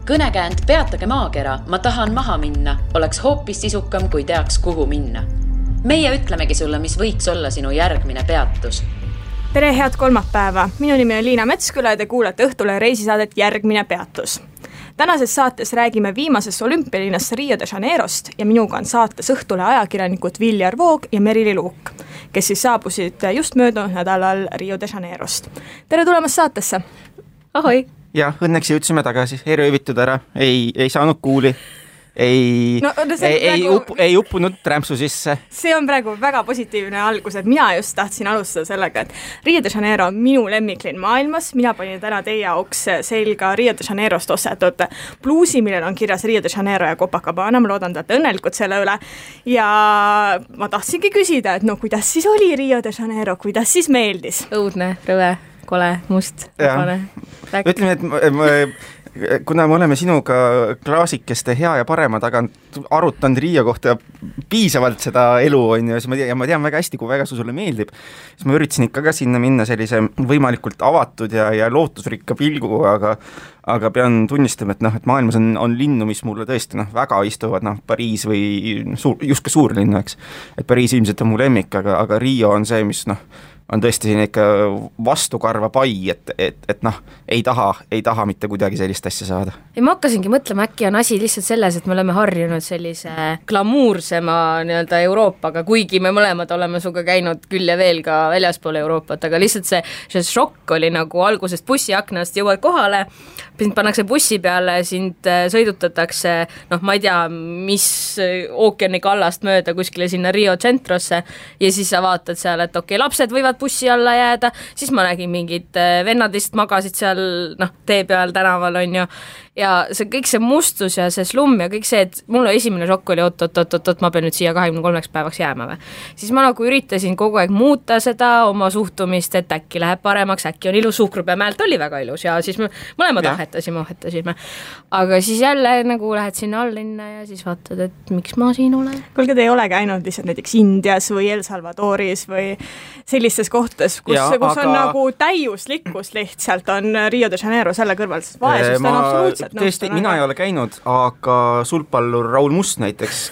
Kõnekäänd Peatage maakera, ma tahan maha minna, oleks hoopis sisukam, kui teaks, kuhu minna. Meie ütlemegi sulle, mis võiks olla sinu järgmine peatus. Tere, head kolmapäeva. Minu nimi on Liina Metsküla ja te kuulete Õhtule reisisaadet Järgmine peatus. Tänases saates räägime viimasest olümpialinnast Rio de Janeirost ja minuga on saates Õhtule ajakirjanikud Viljar Voog ja Merili Luuk, kes siis saabusid just möödunud nädalal Rio de Janeirost. Tere tulemast saatesse! Ahoi! Ja, õnneks jõudsime tagasi, ei röövitud ära, ei saanud kuuli, ei uppunud trämpsu sisse. See on praegu väga positiivne algus, et mina just tahtsin alustada sellega, et Rio de Janeiro on minu lemmiklinn maailmas. Mina panin täna teie jaoks selga Rio de Janeirost ostetud bluusi, millel on kirjas Rio de Janeiro ja Copacabana. Ma loodan, et õnnelikud selle üle. Ja ma tahtsingi küsida, et kuidas siis oli Rio de Janeiro, kuidas siis meeldis? Õudne, rõve, kole, must, vabane. Ütleme, et kuna me oleme sinuga klaasikeste hea ja parema tagant arutanud Rio kohta piisavalt seda elu, ja ma tean väga hästi, kui väga sulle meeldib, siis ma üritasin ikka ka sinna minna sellise võimalikult avatud ja lootusrikka pilgu, aga pean tunnistama, et maailmas on linnu, mis mulle tõesti väga istuvad, Pariis või just ka suurlinnu, eks. Et Pariis ilmselt on mu lemmik, aga Rio on see, mis on tõesti siin ikka vastukarva pai, et ei taha mitte kuidagi sellist asja saada. Ei, ma hakkasingi mõtlema, äkki on asi lihtsalt selles, et me oleme harjunud sellise glamuursema Euroopaga, kuigi me mõlemad oleme suga käinud küll ja veel ka väljaspool Euroopat, aga lihtsalt see šokk oli nagu algusest bussiaknast jõuad kohale, sind pannakse bussi peale, sind sõidutatakse, ma ei tea, mis ookeani kallast mööda kuskile sinna Rio Centrosse ja siis sa vaatad seal, et okei, lapsed võivad bussi alla jääda, siis ma nägin mingid vennadist magasid seal tee peal tänaval on ju, ja kõik see mustus ja see slumm ja kõik see, et mulle esimene šokk oli, oot, ma pean nüüd siia 23 päevaks jääma või. Siis ma üritasin kogu aeg muuta seda oma suhtumist, et äkki läheb paremaks, äkki on ilus, Suhkrupeamäelt oli väga ilus ja siis me mõlemad ohetasime. Aga siis jälle lähed sinna allinna ja siis vaatad, et miks ma siin olen. Kuulge, te ei ole käinud lihtsalt näiteks Indias või El Salvadoris või sellistes kohtades, kus on nagu täiuslikkus lihtsalt on Rio de Janeiro selle kõrval, sest vaesust on absoluutselt. Tõesti, mina ei ole käinud, aga sulgpallur Raul Must näiteks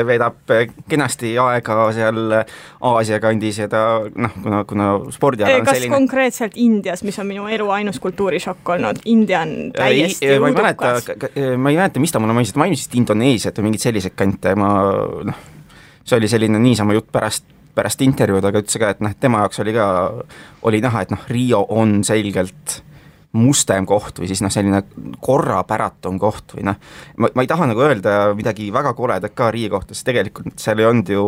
veedab kenasti aega seal Aasia kandis ja ta, kuna spordiala on selline. Kas konkreetselt Indias, mis on minu elu ainus kultuurishokk olnud? India on täiesti udukas. Ma ei mäleta, mis ta mulle mainisid Indoneesiat või mingid sellised kante. See oli selline niisama jutt pärast intervjuud, aga ütles ka, et tema jaoks oli näha, et Rio on selgelt mustem koht või siis selline korrapäratum koht või ma ei taha öelda midagi väga koledat ka Rio kohta, sest tegelikult seal ei olnud ju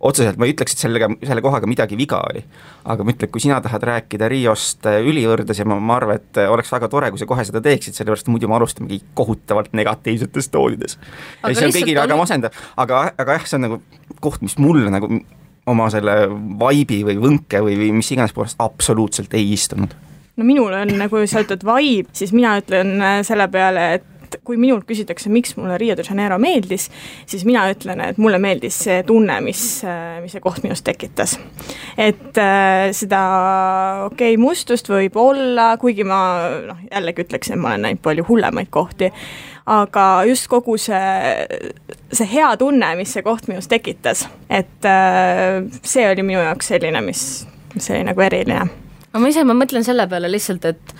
otseselt, ma ei ütleks, et selle kohaga midagi viga oli, aga ma ütlen, kui sina tahad rääkida Riost ülivõrdes ja ma arvan, et oleks väga tore, kui sa kohe seda teeksid, sellepärast muidu me alustamegi kohutavalt negatiivsetes toonides. Ja see on kõigil väga masendav, aga jah, see on koht, mis mulle oma selle vaibi või võnke või mis iganes poolest absoluutselt ei istunud. Minul on seotud vibe, siis mina ütlen selle peale, et kui minult küsitakse, miks mulle Rio de Janeiro meeldis, siis mina ütlen, et mulle meeldis see tunne, mis see koht minust tekitas. Et seda mustust võib olla, kuigi ma jällegi ütleks, et ma olen näinud palju hullemaid kohti, aga just kogu see hea tunne, mis see koht minust tekitas, et see oli minu jaoks selline, mis oli eriline. Ma mõtlen selle peale lihtsalt, et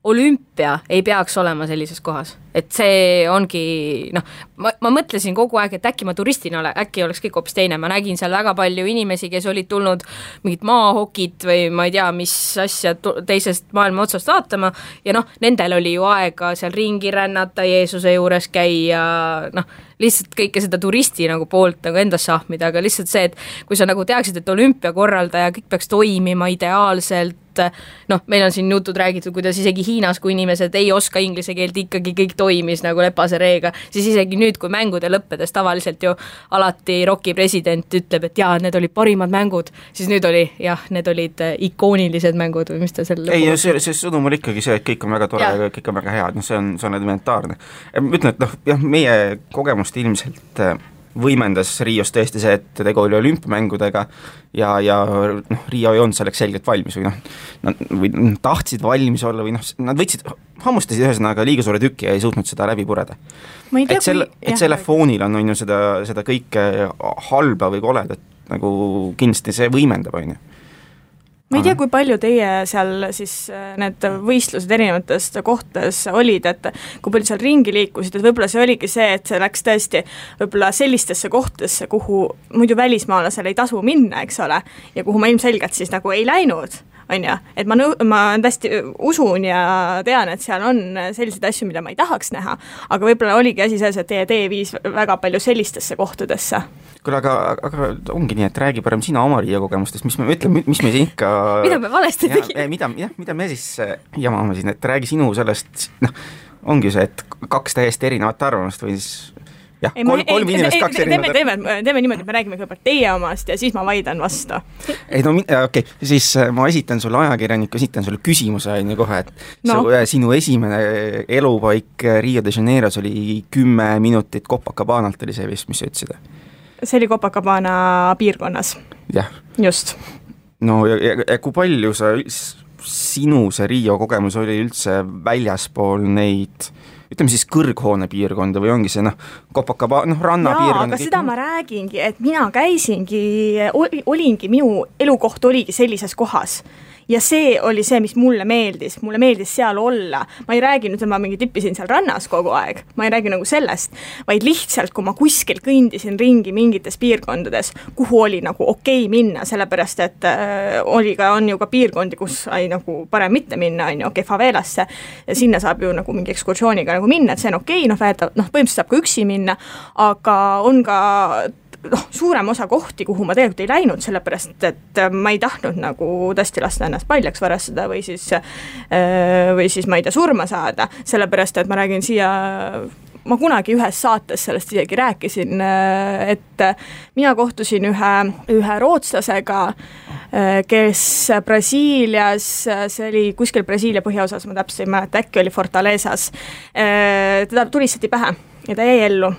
olümpia ei peaks olema sellises kohas. Et see ongi, ma mõtlesin kogu aeg, et äkki ma turistina äkki oleks kõik hoopis teine. Ma nägin seal väga palju inimesi, kes olid tulnud mingit maahokit või ma ei tea, mis asja teisest maailma otsast vaatama ja nendel oli ju aega seal ringi rännata, Jeesuse juures käia, lihtsalt kõike seda turisti poolt endas sahmida, aga lihtsalt see, et kui sa teaksid, et olümpia korraldaja kõik peaks toimima ideaalselt, meil on siin jutud räägitud, kuidas isegi Hiinas, kui inimesed ei oska inglise keelt, ikkagi kõik toimis lepase reega, siis isegi nüüd, kui mängude lõppedes tavaliselt ju alati Rocki president ütleb, et jaa, need olid parimad mängud, siis nüüd oli, need olid ikoonilised mängud või mis ta selle ei, see sõnum oli ikkagi see, et kõik on väga tore ja kõik on väga head, see on elementaarne. Ma ütlen, et meie kogemust ilmselt võimendas Rios tõesti see, et tegu oli olümpiamängudega ja Rio ei olnud selleks selgelt valmis või nad tahtsid valmis olla või nad hammustasid ühesõnaga liiga suure tüki ja ei suutnud seda läbi pureda. Et selle foonil on ju seda kõike halba või koledat nagu kindlasti see võimendab, on ju. Ma ei tea, kui palju teie seal siis need võistlused erinevates kohtades olid, et kui palju seal ringi liikusid, et võib-olla see oligi see, et see läks tõesti võib-olla sellistesse kohtadesse, kuhu muidu välismaalasel ei tasu minna, eks ole, ja kuhu ma ilmselgelt siis nagu ei läinud, on ju, et ma tõesti usun ja tean, et seal on selliseid asju, mida ma ei tahaks näha, aga võib-olla oligi asi selles, et teie tee viis väga palju sellistesse kohtadesse. Kuule, aga ongi nii, et räägi parem sina oma Riia kogemustest, mis me siin ikka mida me valesti tegime? Mida me siis jamame siin, et räägi sinu sellest, ongi see, et 2 täiesti erinevat arvamust või siis jah, kolm inimest 2 erinevat. Teeme niimoodi, et me räägime kõigepealt teie omast ja siis ma vaidan vastu. Okei, siis ma esitan sulle ajakirjaniku, esitan sulle küsimuse kohe, et sinu esimene elupaik Rio de Janeiros oli 10 minutit Copacabanalt oli see vist, mis sa ütlesid? See oli Copacabana piirkonnas. Jah. Just. No ja kui palju sinu see Rio kogemus oli üldse väljaspool neid, ütleme siis kõrghoone piirkonda või ongi see Copacabana, rannapiirkonda? Aga seda ma räägingi, et mina käisingi, olingi, minu elukoht oligi sellises kohas. Ja see oli see, mis mulle meeldis seal olla. Ma ei räägi nüüd, et ma mingi tippisin seal rannas kogu aeg, ma ei räägi nagu sellest, vaid lihtsalt, kui ma kuskil kõndisin ringi mingites piirkondades, kuhu oli nagu okei minna, sellepärast, et on ju ka piirkondi, kus ei nagu parem mitte minna, on ju, favelasse, ja sinna saab ju nagu mingi ekskursiooniga nagu minna, et see on okei, põhimõtteliselt saab ka üksi minna, aga on ka suurem osa kohti, kuhu ma tegelikult ei läinud, sellepärast, et ma ei tahtnud nagu tõesti lasta ennast paljaks varastada või siis ma ei tea, surma saada, sellepärast, et ma räägin siia, ma kunagi ühes saates sellest isegi rääkisin, et mina kohtusin ühe rootslasega, kes Brasiilias, see oli kuskil Brasiilia põhjaosas, ma täpselt ei mäleta, äkki oli Fortalezas, teda tulistati pähe ja ta jäi ellu.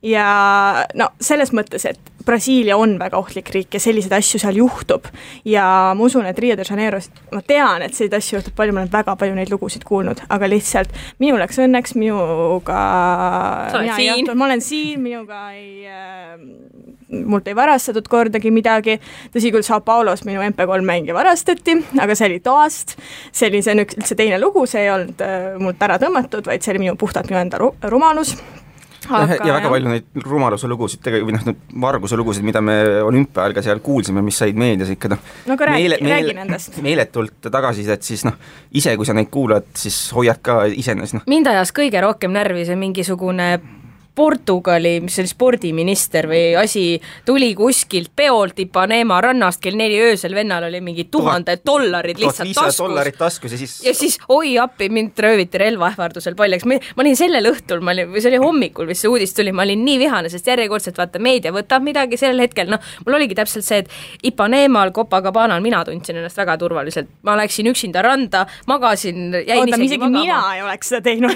Ja selles mõttes, et Brasiilia on väga ohtlik riik ja selliseid asju seal juhtub ja ma usun, et Rio de Janeiro, ma tean, et selliseid asju juhtub palju, ma olen väga palju neid lugusid kuulnud, aga lihtsalt minu läks õnneks, minuga ma olen siin, minuga mult ei varastatud kordagi midagi, tõsi küll Sao Paulos minu MP3 mängija varastati, aga see oli toast, see oli üldse teine lugu, see ei olnud mult ära tõmmatud, vaid see oli puhtalt minu enda rumalus. Ja väga palju neid rumaluse lugusid, varguse lugusid, mida me olümpiaajal ka seal kuulsime, mis said meedias ikka räägi nendest. Meeletult tagasisidet, siis ise kui sa neid kuulad, siis hoiad ka iseenes. Mind ajas kõige rohkem närvi see mingisugune Portugali, mis oli spordiminister või asi, tuli kuskilt peolt Ipanema rannast kell 4 öösel, vennal oli mingi $1000 lihtsalt taskus. Ja siis oi appi, mind rööviti relvaähvardusel paljaks. Ma olin sellel õhtul, või see oli hommikul, mis see uudis tuli, ma olin nii vihane, sest järjekordselt vaata meedia võtab midagi sellel hetkel, mul oligi täpselt see, et Ipanemal, Copacabanal mina tundsin ennast väga turvaliselt. Ma läksin üksinda randa, magasin, jäin isegi magama. Mina ei oleks seda teinud.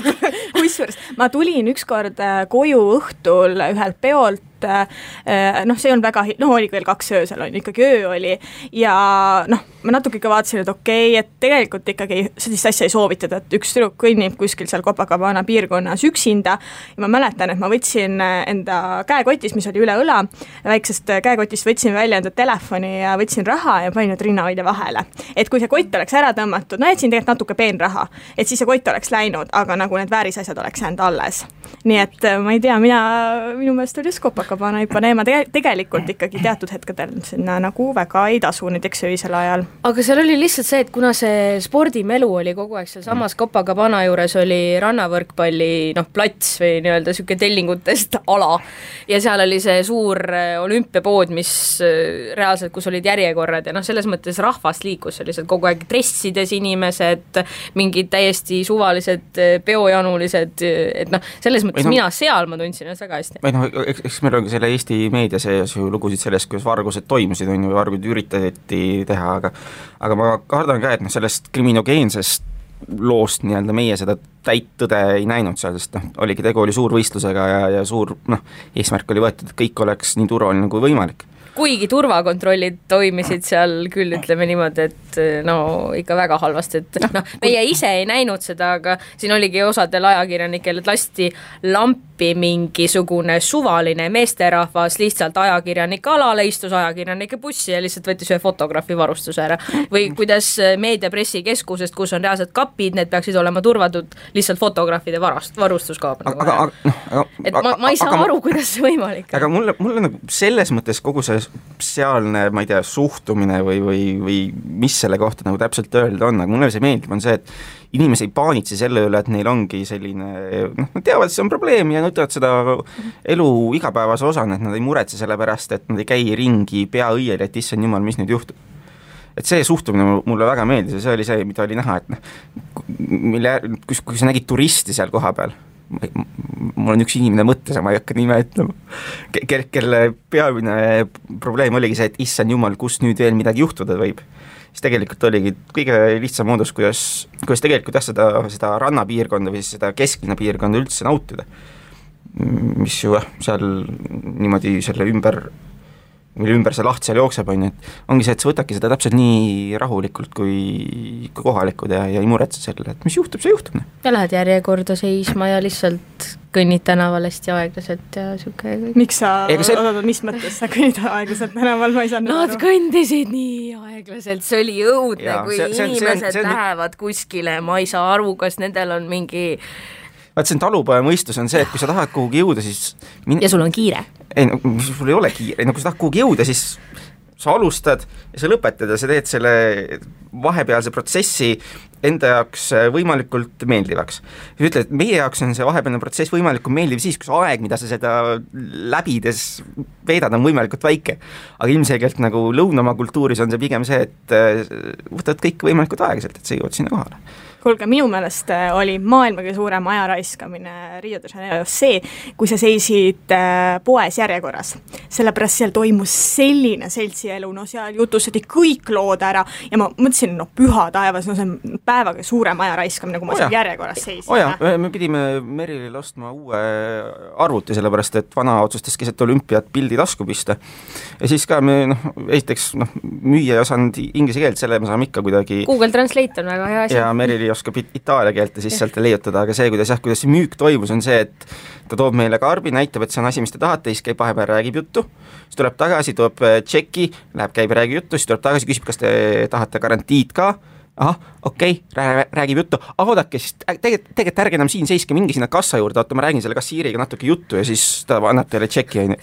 Kusjuures ma tulin ükskord koju õhtul ühelt peolt, see on väga, oli veel 2 öösel, ikkagi öö oli ja ma natuke ikka vaatasin, et okei, et tegelikult ikkagi sellist asja ei soovitada, et üks tüdruk kõnnib kuskil seal Copacabana piirkonnas üksinda ja ma mäletan, et ma võtsin enda käekotis, mis oli üle õla, väiksest käekotist võtsin välja enda telefoni ja võtsin raha ja panin nüüd rinnahoidja vahele. Et kui see kott oleks ära tõmmatud, jätsin tegelikult natuke peenraha, et siis see kott oleks läinud, aga nagu need väärisasjad oleks jäänud alles. Nii et ma ei tea, minu meelest oli Copacabana Ipanema tegelikult ikkagi teatud hetkedel sinna nagu väga ei tasu näiteks öisel ajal. Aga seal oli lihtsalt see, et kuna see spordimelu oli kogu aeg seal samas Copacabana juures oli rannavõrkpalli plats või nii-öelda siuke tellingutest ala ja seal oli see suur olümpiapood, mis reaalselt, kus olid järjekorrad ja selles mõttes rahvast liikus, oli seal kogu aeg dressides inimesed, mingid täiesti suvalised peojanulised, et selles mõttes mina seal ma tundsin ennast väga hästi. Eks meil ongi selle Eesti meedia sees ju lugusid sellest, kuidas vargused toimusid, vargud üritati teha, aga ma kardan ka, et sellest kriminogeensest loost nii-öelda meie seda täit tõde ei näinud seal, sest oligi tegu oli suur võistlusega ja suur eesmärk oli võetud, et kõik oleks nii turvaline kui võimalik. Kuigi turvakontrollid toimisid seal küll, ütleme niimoodi, et no ikka väga halvasti, et meie ise ei näinud seda, aga siin oligi osadel ajakirjanikel, et lasti lampi mingisugune suvaline meesterahvas lihtsalt ajakirjanike alale, istus ajakirjanike bussi ja lihtsalt võttis ühe fotograafi varustuse ära. Või kuidas meediapressikeskusest, kus on reaalsed kapid, need peaksid olema turvatud lihtsalt fotograafide varustuskaab. Et ma ei saa aru, kuidas see võimalik. Aga mulle nagu selles mõttes kogu see sealne, ma ei tea, suhtumine või mis selle kohta nagu täpselt öelda on, aga mulle see meeldib, on see, et inimesi ei paanitse selle üle, et neil ongi selline, nad teavad, et see on probleem ja võtavad seda elu igapäevase osana, et nad ei muretse selle pärast, et nad ei käi ringi pea õiel, et issand jumal, mis nüüd juhtub. Et see suhtumine mulle väga meeldis ja see oli see, mida oli näha, et kui sa nägid turisti seal koha peal, mul on üks inimene mõttes, ma ei hakka nime ütlema, kelle peamine probleem oligi see, et issand jumal, kus nüüd veel midagi juhtuda võib. Siis tegelikult oligi kõige lihtsam moodus, kuidas tegelikult seda rannapiirkonda või seda kesklinna piirkonda üldse nautida, mis ju seal niimoodi selle ümber see laht seal jookseb, et ongi see, et sa võtadki seda täpselt nii rahulikult kui kohalikud ja ei muretse selle, et mis juhtub, see juhtub. Ja lähed järjekorda seisma ja lihtsalt kõnnid tänaval hästi aeglaselt ja siuke. Miks sa, mis mõttes sa kõnnid aeglaselt tänaval, ma ei saanud Nad kõndisid nii aeglaselt, see oli õudne, kui inimesed lähevad kuskile, ma ei saa aru, kas nendel on mingi see on talupoja mõistus on see, et kui sa tahad kuhugi jõuda, siis ja sul on kiire? Ei, sul ei ole kiire, kui sa tahad kuhugi jõuda, siis sa alustad ja sa lõpetad ja sa teed selle vahepealse protsessi enda jaoks võimalikult meeldivaks. Ja ütled, et meie jaoks on see vahepealne protsess võimalikult meeldiv siis, kui see aeg, mida sa seda läbides veedad, on võimalikult väike. Aga ilmselgelt nagu lõunamaa kultuuris on see pigem see, et võtad kõik võimalikult aeglaselt, et sa jõuad sinna kohale. Kuulge, minu meelest oli maailma kõige suurem ajaraiskamine Rio de Janeiro see, kui sa seisid poes järjekorras. Sellepärast seal toimus selline seltsielu, seal jutustati kõik lood ära ja ma mõtlesin, püha taevas, see on päevaga suurem ajaraiskamine, kui ma seal järjekorras seisin. Me pidime Merilil ostma uue arvuti, sellepärast et vana otsustas keset olümpiat pildi tasku pista. Ja siis ka me, esiteks, müüa ei osanud inglise keelt, selle me saame ikka kuidagi Google Translate on väga hea asi. Ja Merili oskab itaalia keelt ja siis sealt leiutada, aga see, kuidas see müük toimus, on see, et ta toob meile karbi, näitab, et see on asi, mis te tahate, siis käib vahepeal, räägib juttu, siis tuleb tagasi, toob tšeki, läheb, käib, räägib juttu, siis tuleb tagasi, küsib, kas te tahate garantiid ka, okei, räägib juttu, oodake, siis tegelikult ärge enam siin seiske, mingi sinna kassa juurde, ma räägin selle kassiiriga natuke juttu ja siis ta annab teile tšeki ja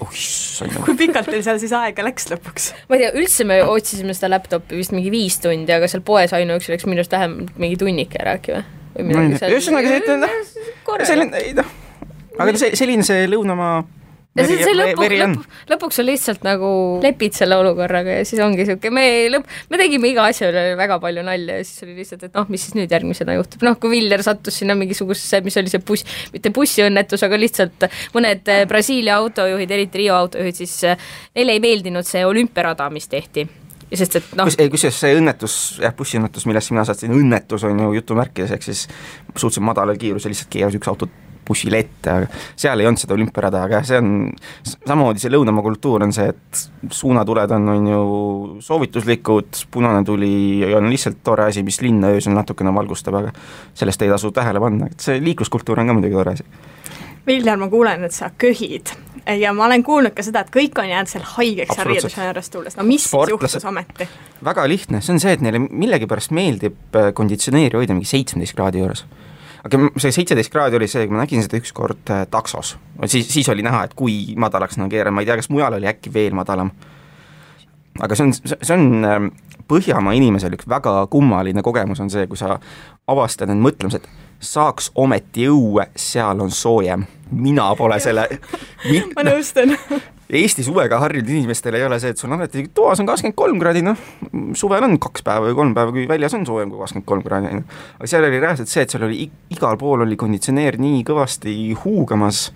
kui pikalt teil seal siis aega läks lõpuks? Ma ei tea, üldse me otsisime seda laptopi vist mingi 5 tundi, aga seal poes ainuüksi läks minust vähem mingi tunnike rääkima. Aga selline see lõunamaa lõpuks on lihtsalt nagu lepid selle olukorraga ja siis ongi siuke, me tegime iga asja üle väga palju nalja ja siis oli lihtsalt, et mis siis nüüd järgmisena juhtub. Kui Viljar sattus sinna mingisugusesse, mis oli see mitte bussiõnnetus, aga lihtsalt mõned Brasiilia autojuhid, eriti Rio autojuhid, siis neile ei meeldinud see olümpiarada, mis tehti. Sest, et kusjuures see õnnetus, bussiõnnetus, millest mina saatsin, õnnetus on ju jutumärkides, ehk siis suhteliselt madalal kiirus ja lihtsalt keeras üks auto bussile ette, aga seal ei olnud seda olümpiarada, aga see on samamoodi see lõunamaa kultuur on see, et suunatuled on ju soovituslikud, punane tuli on lihtsalt tore asi, mis linna öösel natukene valgustab, aga sellest ei tasu tähele panna, et see liikluskultuur on ka muidugi tore asi. Viljar, ma kuulen, et sa köhid ja ma olen kuulnud ka seda, et kõik on jäänud seal haigeks Rio de Janeirost tulles. Mis juhtus ometi? Väga lihtne, see on see, et neile millegipärast meeldib konditsioneeri hoida mingi 17 kraadi juures. Aga see 17 kraadi oli see, kui ma nägin seda üks kord taksos. Siis oli näha, et kui madalaks keeran, ma ei tea, kas mujal oli äkki veel madalam. Aga see on Põhjamaa inimesel üks väga kummaline kogemus on see, kui sa avastad need mõtlemised, saaks ometi õue, seal on soojem. Mina pole selle... Ma nõustan. Eesti suvega harjunud inimestel ei ole see, et sul on alati toas on 23 kraadi, suvel on 2 päeva või 3 päeva, kui väljas on soojem kui 23 kraadi. Aga seal oli reaalselt see, et seal oli igal pool oli konditsioneer nii kõvasti huugamas,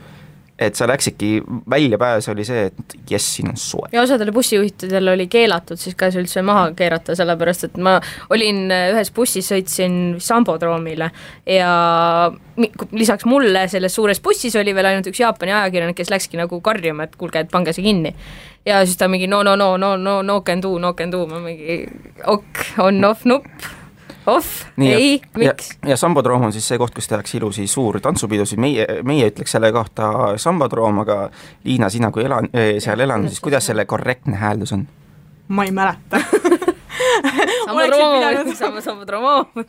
et sa läksidki väljapääs oli see, et jess, siin on soe. Ja osadele bussijuhtidel oli keelatud siis ka üldse maha keerata, sellepärast et ma olin ühes bussis, sõitsin Sambodroomile ja lisaks mulle selles suures bussis oli veel ainult üks Jaapani ajakirjanik, kes läkski nagu karjuma, et kuulge, et pange see kinni. Ja siis ta mingi no can do, ma mingi on off nupp. Ei, miks? Ja Sambodroom on siis see koht, kus tehakse ilusi suur tantsupidusid, meie ütleks selle kohta Sambodroom, aga Liina, sina kui seal elan, siis kuidas selle korrektne hääldus on? Ma ei mäleta.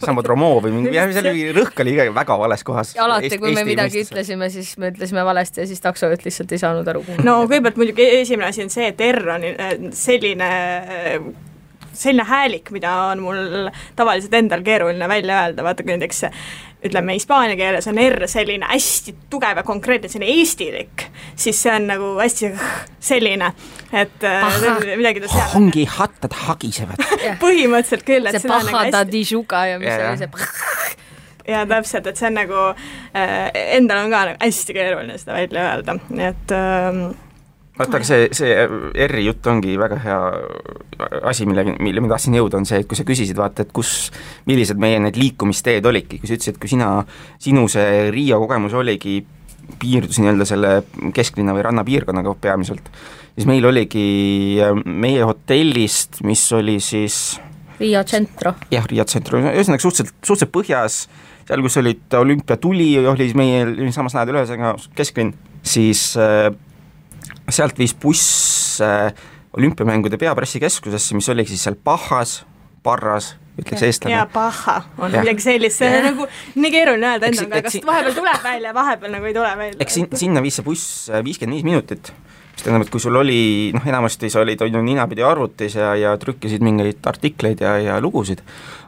Sambodromo või mingi rõhk oli väga vales kohas. Ja alati, kui me midagi ütlesime, siis me ütlesime valesti ja siis taksojuht lihtsalt ei saanud aru. No kõigepealt muidugi esimene asi on see, et R on selline häälik, mida on mul tavaliselt endal keeruline välja öelda, vaata kui näiteks ütleme hispaania keeles on R selline hästi tugev ja konkreetne, selline eestilik, siis see on nagu hästi selline, et midagi ta seal ongi hattad hagisevad. Põhimõtteliselt küll, et see pahada dižuga ja mis oli see ja täpselt, et see on nagu endal on ka nagu hästi keeruline seda välja öelda, nii et vaata, aga see R-i jutt ongi väga hea asi, mille ma tahtsin jõuda, on see, et kui sa küsisid, vaata, et millised meie need liikumisteed olidki, kui sa ütlesid, et kui sinu see Riia kogemus oligi, piirdusin nii-öelda selle kesklinna või rannapiirkonnaga peamiselt, siis meil oligi meie hotellist, mis oli siis Riia Centro. Jah, Riia Centro, ühesõnaga suhteliselt põhjas, seal kus olid olümpiatuli, oli meil samas lähedal ühesõnaga kesklinn, siis sealt viis buss olümpiamängude peapressikeskusesse, mis oli siis seal Parras, ütleks eestlane. Ja Paha on midagi sellist, see on nagu nii keeruline öelda endaga, kas vahepeal tuleb välja, vahepeal nagu ei tule välja. Eks sinna viis see buss 55 minutit, mis tähendab, et kui sul oli, enamasti sa olid ninapidi arvutis ja trükkisid mingeid artikleid ja lugusid,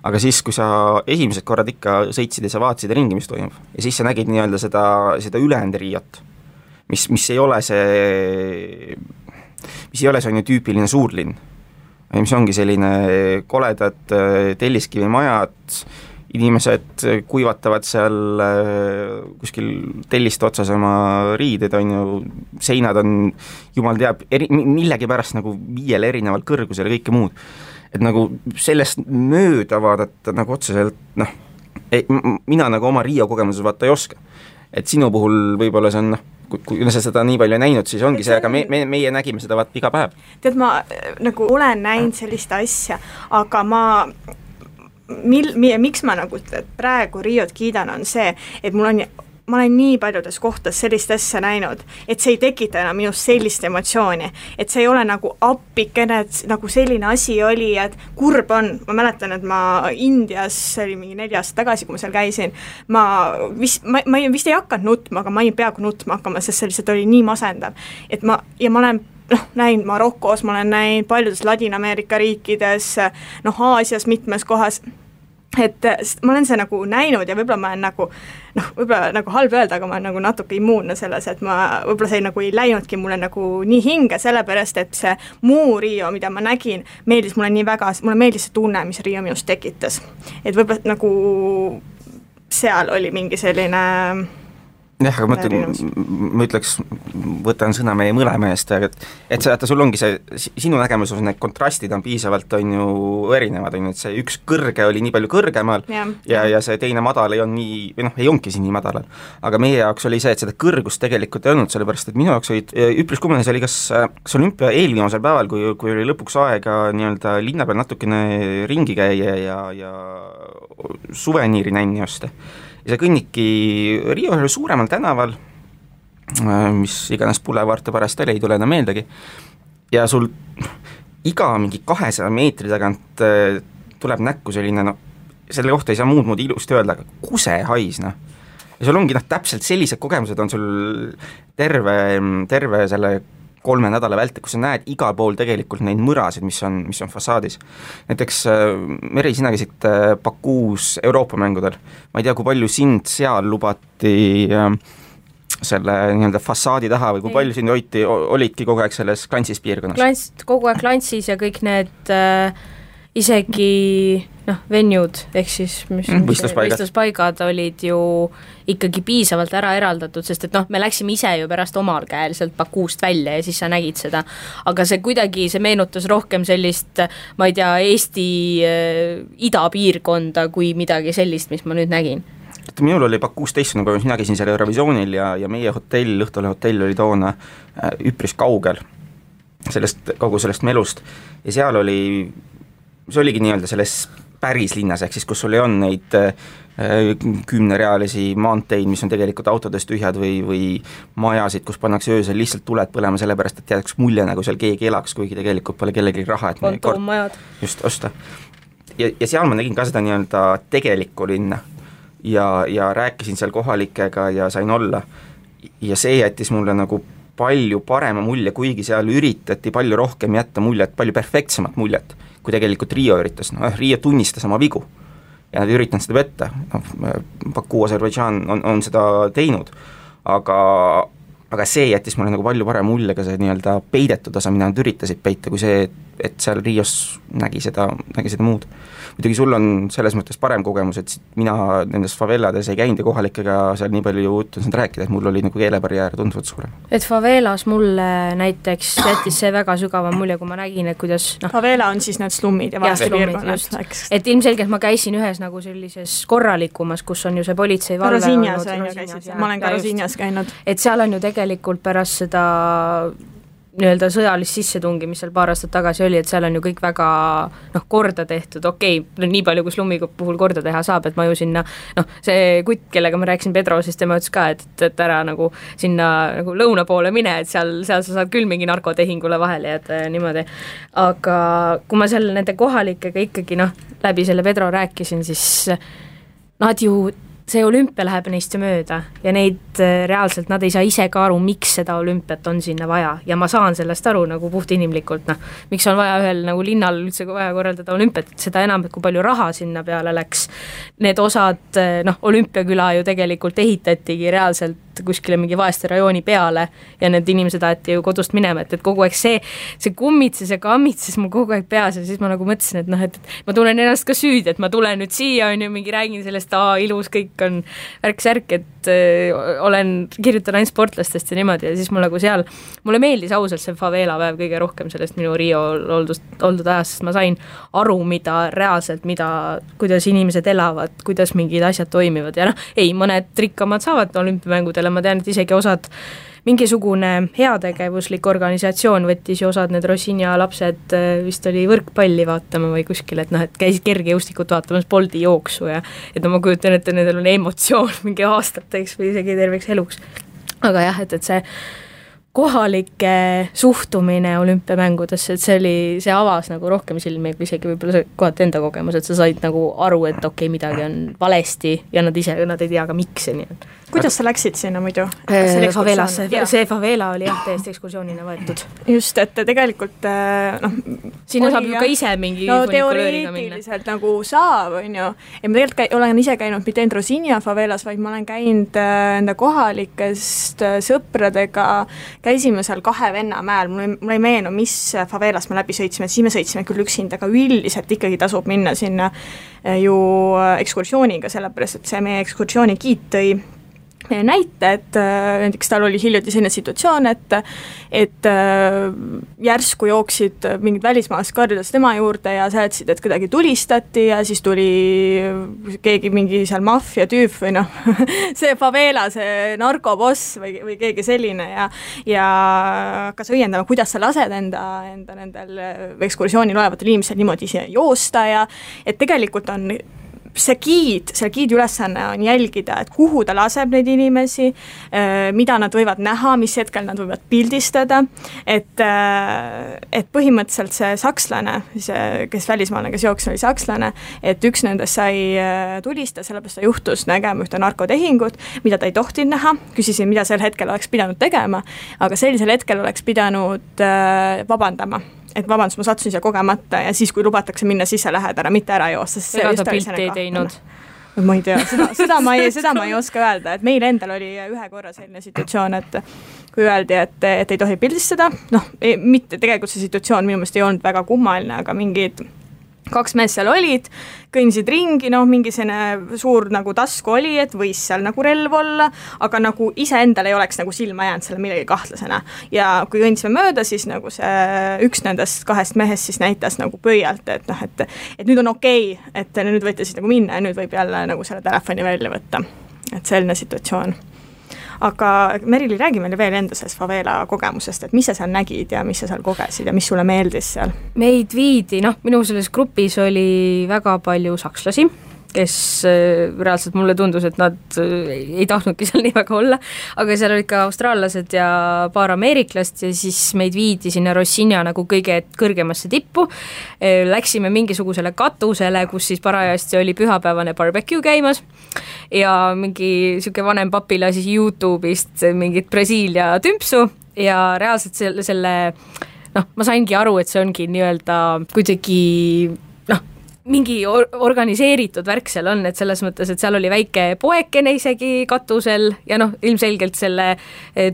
aga siis, kui sa esimesed korrad ikka sõitsid ja sa vaatasid ringi, mis toimub, ja siis sa nägid nii-öelda seda ülejäänud Riiat, mis ei ole see on ju tüüpiline suurlinn, mis ongi selline koledad telliskivimajad, inimesed kuivatavad seal kuskil telliste otsas oma riided, on ju, seinad on, jumal teab, millegi pärast nagu 5 erineval kõrgusel ja kõike muud. Et nagu sellest mööda vaadata nagu otseselt, mina nagu oma Riia kogemuses vaata ei oska. Et sinu puhul võib-olla see on, kui sa seda nii palju näinud, siis ongi see, aga meie nägime seda vaat iga päev. Tead, ma nagu olen näinud sellist asja, aga miks ma nagu praegu Riiot kiidan on see, et ma olen nii paljudes kohtades sellist asja näinud, et see ei tekita enam minust sellist emotsiooni, et see ei ole nagu appikene, et nagu selline asi oli, et kurb on, ma mäletan, et ma Indias, see oli mingi 4 aastat tagasi, kui ma seal käisin, ma vist ei hakanud nutma, aga ma ei peaaegu nutma hakkama, sest see lihtsalt oli nii masendav, et ma olen näinud Marokos, ma olen näinud paljudes Ladina-Ameerika riikides, Aasias mitmes kohas, et ma olen see nagu näinud ja võib-olla ma olen nagu, võib-olla nagu halb öelda, aga ma olen nagu natuke immuunne selles, et ma võib-olla see nagu ei läinudki mulle nagu nii hinge, sellepärast, et see muu Riio, mida ma nägin, meeldis mulle nii väga, mulle meeldis see tunne, mis Riio minust tekitas. Et võib-olla nagu seal oli mingi selline jah, aga ma ütleks, võtan sõna meie mõlema eest, et sul ongi see, sinu nägemuses need kontrastid on piisavalt on ju erinevad, on ju, et see üks kõrge oli nii palju kõrgemal ja see teine madal ei on nii, või ei ongi siin nii madalal, aga meie jaoks oli see, et seda kõrgust tegelikult ei olnud, sellepärast et minu jaoks olid üpris kummaline, see oli kas olümpia eelviimasel päeval, kui oli lõpuks aega nii-öelda linna peal natukene ringi käia ja suveniiri nänni osta. Ja sa kõnnidki Riio ühel suuremal tänaval, mis iganes Boulevard pärast ei tule enam meeldegi, ja sul iga mingi 200 meetri tagant tuleb näkku selline, selle kohta ei saa muud ilusti öelda, aga kusehais, Ja sul ongi täpselt sellised kogemused on sul terve selle 3 nädala vältel, kus sa näed igal pool tegelikult neid mõrasid, mis on fassaadis. Näiteks Meri, sina käisid Bakuus Euroopa mängudel. Ma ei tea, kui palju sind seal lubati selle nii-öelda fassaadi taha või kui palju sind olidki kogu aeg selles klantsis piirkonnas? Kogu aeg klantsis ja kõik need isegi venued ehk siis võistluspaigad olid ju ikkagi piisavalt ära eraldatud, sest et me läksime ise ju pärast omal käel sealt Bakuust välja ja siis sa nägid seda, aga see meenutas rohkem sellist, ma ei tea, Eesti idapiirkonda kui midagi sellist, mis ma nüüd nägin. Minul oli Bakuus teistsugune kogemus, mina käisin seal Eurovisioonil ja meie hotell, Õhtule hotell oli toona üpris kaugel kogu sellest melust ja seal see oligi nii-öelda selles päris linnas, ehk siis kus sul ei on neid 10-realisi maanteid, mis on tegelikult autodest tühjad või majasid, kus pannakse öösel lihtsalt tuled põlema sellepärast, et jääks mulje, nagu seal keegi elaks, kuigi tegelikult pole kellelgi raha, et kontoomajad just osta. Ja seal ma nägin ka seda nii-öelda tegelikku linna ja rääkisin seal kohalikega ja sain olla ja see jättis mulle nagu palju parema mulje, kuigi seal üritati palju rohkem jätta muljet, palju perfektsemat muljet, kui tegelikult Rio üritas. Rio tunnistas oma vigu ja nad üritanud seda võtta. Baku, Aserbaidžaan on seda teinud, aga see jättis mulle nagu palju parem mulje ka see nii-öelda peidetud osa, mida nad üritasid peita, kui see, et seal Rios nägi seda muud. Muidugi sul on selles mõttes parem kogemus, et mina nendes favelades ei käinud ja kohalikega seal nii palju juttu saanud rääkida, et mul oli nagu keelebarjäär tunduvalt suurem. Et favelas mulle näiteks jättis see väga sügava mulje, kui ma nägin, et kuidas favela on siis need slummid ja vaestepiirkonnad. Et ilmselgelt ma käisin ühes nagu sellises korralikumas, kus on ju see politsei valve Rosinjas ma olen ka Rosinjas käinud. Et seal on ju tegelikult pärast seda nii-öelda sõjalist sissetungi, mis seal paar aastat tagasi oli, et seal on ju kõik väga korda tehtud, nii palju kui slummi puhul korda teha saab, et ma ju sinna, see kutt, kellega ma rääkisin Pedro, siis tema ütles ka, et ära nagu sinna nagu lõuna poole mine, et seal sa saad küll mingi narkotehingule vahele jääda ja niimoodi, aga kui ma seal nende kohalikega ikkagi läbi selle Pedro rääkisin, siis nad ju see olümpia läheb neist mööda ja neid reaalselt, nad ei saa ise ka aru, miks seda olümpiat on sinna vaja ja ma saan sellest aru nagu puht inimlikult, miks on vaja ühel nagu linnal üldse vaja korraldada olümpiat, seda enam, et kui palju raha sinna peale läks. Need osad, olümpiaküla ju tegelikult ehitatigi reaalselt kuskile mingi vaeste rajooni peale ja need inimesed aeti ju kodust minema, et kogu aeg see kummitses ja kammitses mul kogu aeg peas ja siis ma nagu mõtlesin, et ma tunnen ennast ka süüd, et ma tulen nüüd siia, on ju, mingi räägin sellest, ilus kõik on värk-särk, et kirjutan ainult sportlastest ja niimoodi ja siis mul nagu seal, mulle meeldis ausalt see favela päev kõige rohkem sellest minu Rio oldud ajast, sest ma sain aru, kuidas inimesed elavad, kuidas mingid asjad toimivad ja mõned rikkamad saavad olümpiamängudele, ma tean, et isegi osad mingisugune heategevuslik organisatsioon võttis ju osad need Rosinja lapsed vist oli võrkpalli vaatama või kuskil, et käisid kergejõustikut vaatamas Bolti jooksu ja et ma kujutan, et nendel on emotsioon mingi aastateks või isegi terveks eluks. Aga jah, et see kohalike suhtumine olümpiamängudesse, et see avas nagu rohkem silmi, kui isegi võib-olla see kohati enda kogemus, et sa said nagu aru, et midagi on valesti ja nad ei tea ka miks ja nii. Kuidas sa läksid sinna muidu? Favelasse, see favela oli täiesti ekskursioonina võetud. Just, et tegelikult sinna saab ju ka ise mingi teoreetiliselt nagu saab, on ju. Ja ma tegelikult olen ise käinud mitte ainult Rosinja favelas, vaid ma olen käinud enda kohalikest sõpradega, käisime seal 2 Vennamäel, mul ei meenu, mis favelas me läbi sõitsime, siis me sõitsime küll üksinda, aga üldiselt ikkagi tasub minna sinna ju ekskursiooniga, sellepärast, et see meie ekskursiooni giid tõi näite, et näiteks tal oli hiljuti selline situatsioon, et järsku jooksid mingid välismaalased karjudes tema juurde ja seletasid, et kuidagi tulistati ja siis tuli keegi mingi seal maffia tüüp või see favela, see narkoboss või keegi selline ja hakkas õiendama, kuidas sa lased enda nendel ekskursioonil olevatel inimesel niimoodi joosta ja et tegelikult on see giidi ülesanne on jälgida, et kuhu ta laseb neid inimesi, mida nad võivad näha, mis hetkel nad võivad pildistada, et põhimõtteliselt see sakslane, kes välismaalane, kes jooksis, oli sakslane, et üks nendest sai tulista, sellepärast ta juhtus nägema ühte narkotehingut, mida ta ei tohtinud näha, küsisin, mida sel hetkel oleks pidanud tegema, aga sellisel hetkel oleks pidanud vabandama. Et vabandust, ma sattusin siia kogemata ja siis, kui lubatakse minna sisse, lähed ära, mitte ära joosta. Ega ta pilti ei teinud? Ma ei tea, seda ma ei oska öelda, et meil endal oli ühe korra selline situatsioon, et kui öeldi, et ei tohi pildistada, mitte tegelikult see situatsioon minu meelest ei olnud väga kummaline, aga mingid 2 meest seal olid, kõndisid ringi, mingi selline suur nagu tasku oli, et võis seal nagu relv olla, aga nagu iseendal ei oleks nagu silma jäänud selle millegi kahtlasena. Ja kui kõndisime mööda, siis nagu see üks nendest 2 mehest siis näitas nagu pöialt, et nüüd on okei, et nüüd võite siis nagu minna ja nüüd võib jälle nagu selle telefoni välja võtta. Et selline situatsioon. Aga Merili, räägi meile veel enda sellest favela kogemusest, et mis sa seal nägid ja mis sa seal kogesid ja mis sulle meeldis seal? Meid viidi, minu selles grupis oli väga palju sakslasi, kes reaalselt mulle tundus, et nad ei tahtnudki seal nii väga olla, aga seal olid ka austraallased ja paar ameeriklast ja siis meid viidi sinna Rocinha nagu kõige kõrgemasse tippu. Läksime mingisugusele katusele, kus siis parajasti oli pühapäevane barbecue käimas ja mingi siuke vanem papi lasi YouTube'ist mingit Brasiilia tümpsu ja reaalselt selle ma saingi aru, et see ongi nii-öelda kuidagi mingi organiseeritud värk seal on, et selles mõttes, et seal oli väike poekene isegi katusel ja ilmselgelt selle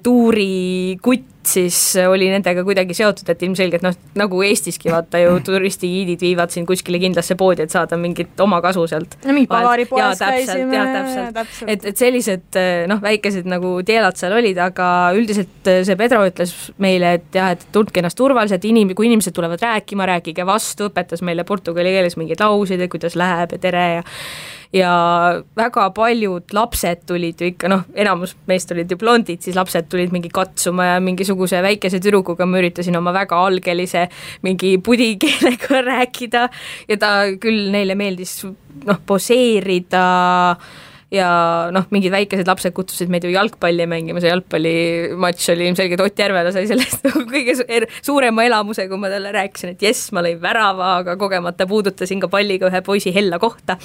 tuuri kutt siis oli nendega kuidagi seotud, et ilmselgelt nagu Eestiski vaata ju turistigiidid viivad siin kuskile kindlasse poodi, et saada mingit oma kasu sealt. Mingi pagaripoes käisime. Täpselt. Et sellised väikesed nagu tielad seal olid, aga üldiselt see Pedro ütles meile, et jah, et tundke ennast turvaliselt, kui inimesed tulevad rääkima, rääkige vastu, õpetas meile portugali keeles mingeid lauseid, kuidas läheb ja tere ja väga paljud lapsed tulid ju ikka, enamus meist olid ju blondid, siis lapsed tulid mingi katsuma ja mingisuguse väikese tüdrukuga ma üritasin oma väga algelise mingi pudikeelega rääkida ja ta küll neile meeldis poseerida ja mingid väikesed lapsed kutsusid meid ju jalgpalli mängima, see jalgpallimatš oli ilmselgelt Ott Järvela sai sellest kõige suurema elamuse, kui ma talle rääkisin, et jess, ma lõin värava, aga kogemata puudutasin ka palliga ühe poisi hella kohta.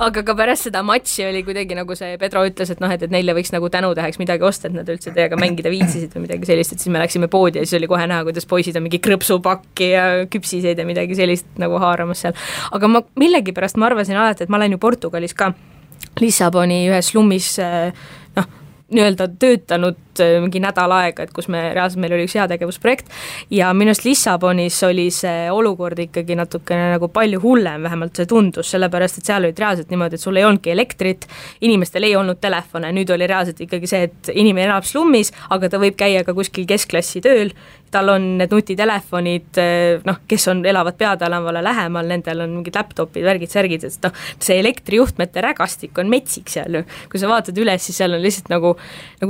Aga ka pärast seda matši oli kuidagi nagu see Pedro ütles, et neile võiks nagu tänutäheks midagi osta, et nad üldse teiega mängida viitsisid või midagi sellist, et siis me läksime poodi ja siis oli kohe näha, kuidas poisid on mingi krõpsupakki ja küpsiseid ja midagi sellist nagu haaramas seal. Aga millegipärast ma arvasin alati, et ma olen ju Portugalis ka Lissaboni ühes slummis nii-öelda töötanud mingi nädal aega, et kus reaalselt meil oli üks heategevusprojekt ja minust Lissabonis oli see olukord ikkagi natukene nagu palju hullem, vähemalt see tundus, sellepärast, et seal olid reaalselt niimoodi, et sul ei olnudki elektrit, inimestel ei olnud telefone, nüüd oli reaalselt ikkagi see, et inimene elab slummis, aga ta võib käia ka kuskil keskklassi tööl, tal on need nutitelefonid, kes elavad peatälavale lähemal, nendel on mingid laptopid, värgid, särgid, et see elektrijuhtmete rägastik on metsik seal ju, kui sa vaatad üles, siis seal on lihtsalt nagu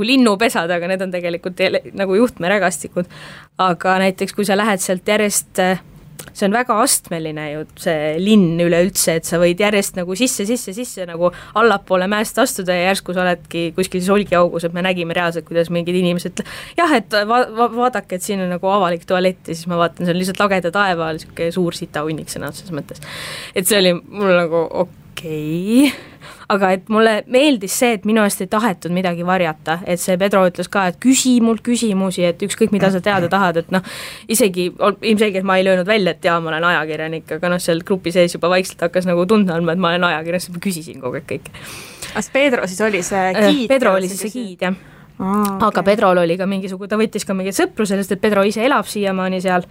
linnupesad, aga need on tegelikult nagu juhtmerägastikud, aga näiteks kui sa lähed sealt järjest, see on väga astmeline ju see linn üleüldse, et sa võid järjest nagu sisse nagu allapoole mäest astuda ja järsku sa oledki kuskil solgiaugus, et me nägime reaalselt, kuidas mingid inimesed jah, et vaadake, et siin on nagu avalik tualett ja siis ma vaatan, see on lihtsalt lageda taeva, siuke suur sitahunnik sõna otseses mõttes. Et see oli mul nagu okei. Aga et mulle meeldis see, et minu eest ei tahetud midagi varjata, et see Pedro ütles ka, et küsi mult küsimusi, et ükskõik mida sa teada tahad, et isegi ilmselgelt ma ei löönud välja, et jaa, ma olen ajakirjanik, aga seal grupi sees juba vaikselt hakkas nagu tundma, et ma olen ajakirjanik, siis ma küsisin kogu aeg kõik. Kas Pedro siis oli see giid? Pedro oli siis see giid, jah. Okay. Aga Pedrol oli ka ta võttis ka mingit sõpru sellest, et Pedro ise elab siiamaani seal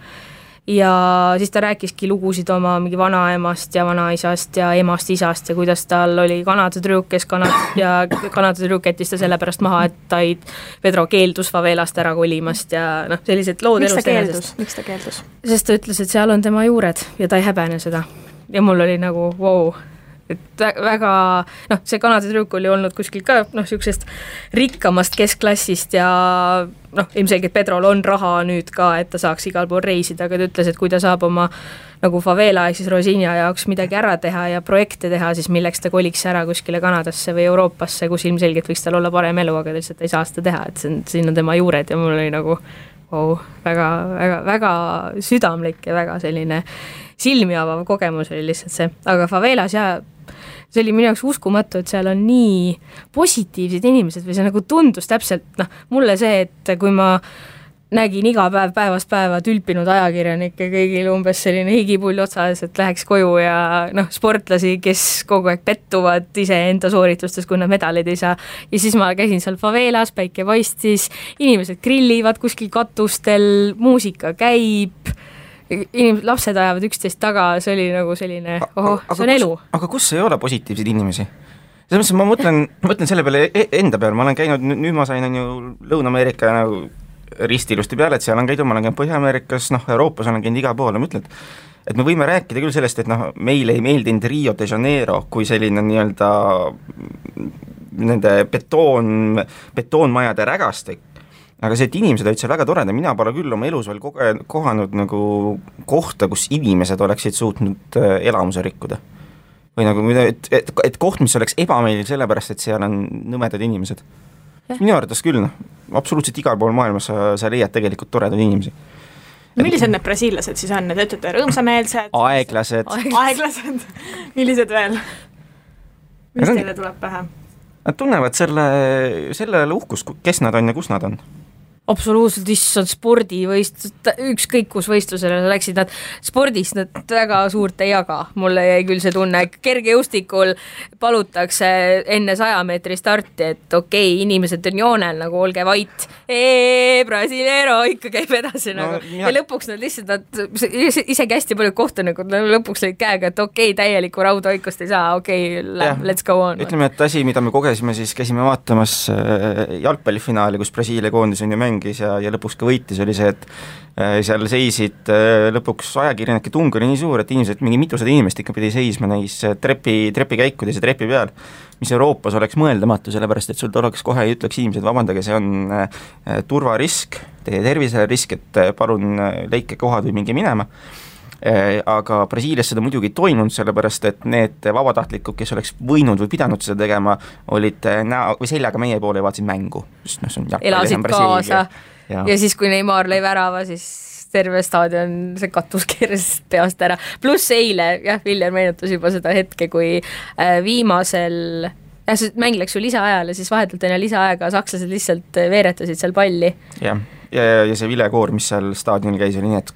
ja siis ta rääkiski lugusid oma mingi vanaemast ja vanaisast ja emast isast ja kuidas tal oli Kanada tüdruk, kes Kanada tüdruk jättis ta sellepärast maha, et Pedro keeldus favelast ära kolimast ja sellised lood elust enesest. Miks ta keeldus? Sest ta ütles, et seal on tema juured ja ta ei häbene seda. Ja mul oli nagu wow, et väga, see Kanada tüdruk oli olnud kuskil ka siuksest rikkamast keskklassist ja ilmselgelt Pedrol on raha nüüd ka, et ta saaks igal pool reisida, aga ta ütles, et kui ta saab oma nagu favela ehk siis Rocinha jaoks midagi ära teha ja projekte teha, siis milleks ta koliks ära kuskile Kanadasse või Euroopasse, kus ilmselgelt võiks tal olla parem elu, aga lihtsalt ei saa seda teha, et siin on tema juured ja mul oli nagu väga, väga, väga südamlik ja väga selline silmi avav kogemus oli lihtsalt see, aga favelas see oli minu jaoks uskumatu, et seal on nii positiivsed inimesed või see nagu tundus täpselt, mulle see, et kui ma nägin iga päev päevast päeva tülpinud ajakirjanikke, kõigil umbes selline higipull otsas, et läheks koju ja sportlasi, kes kogu aeg pettuvad iseenda sooritustes, kui nad medaleid ei saa. Ja siis ma käisin seal favelas, päike paistis, inimesed grillivad kuskil katustel, muusika käib, lapsed ajavad üksteist taga, see oli nagu selline, see on elu. Aga kus ei ole positiivseid inimesi? Selles mõttes ma mõtlen selle peale enda peale, ma olen käinud, nüüd ma sain on ju Lõuna-Ameerika nagu ristilusti peale, et seal on käidud, ma olen käinud Põhja-Ameerikas, Euroopas olen käinud igal pool, ma ütlen, et me võime rääkida küll sellest, et meile ei meeldinud Rio de Janeiro kui selline nii-öelda nende betoonmajade rägastik, aga see, et inimesed olid seal väga toreda, mina pole küll oma elus veel kohanud nagu kohta, kus inimesed oleksid suutnud elamuse rikkuda. Või nagu, et koht, mis oleks ebameeldiv sellepärast, et seal on nõmedad inimesed. Minu arvates küll, absoluutselt igal pool maailmas sa leiad tegelikult toredad inimesi. Millised need brasiillased siis on? Need ütlete rõõmsameelsed? Aeglased. Millised veel? Mis teile tuleb pähe? Nad tunnevad selle uhkus, kes nad on ja kus nad on. Absoluutselt, issand spordivõistlus, ükskõik kus võistlusele läksid nad, spordis nad väga suurt ei jaga, mulle jäi küll see tunne, kergejõustikul palutakse enne 100 meetri starti, et okei, inimesed on joonel, nagu olge vait, Brasileiro ikka käib edasi nagu. Ja lõpuks nad lihtsalt, isegi hästi palju kohtunikud lõpuks lõid käega, et okei, täielikku raudhoikust ei saa, okei, let's go on. Ütleme, et asi, mida me kogesime, siis käisime vaatamas jalgpallifinaali, kus Brasiilia koondis on ju mängis ja lõpuks ka võitis, oli see, et seal seisid lõpuks ajakirjanike tung oli nii suur, et inimesed, mingi mitusada inimest ikka pidi seisma neis trepikäikudes ja trepi peal, mis Euroopas oleks mõeldamatu, sellepärast et sul oleks kohe ja ütleks inimesed, vabandage, see on turvarisk, teie tervisele risk, et palun leike kohad või mingi minema. Aga Brasiilias seda muidugi ei toimunud, sellepärast et need vabatahtlikud, kes oleks võinud või pidanud seda tegema, olid või seljaga meie poole ja vaatasid mängu. Elasid kaasa ja siis, kui Neymar lõi värava, siis terve staadion, see katus keeras peast ära. Pluss eile, Viljar meenutas juba seda hetke, kui viimasel see mäng läks ju lisaajale, siis vahetult enne lisaaega sakslased lihtsalt veeretasid seal palli. Ja see vilekoor, mis seal staadionil käis, oli nii, et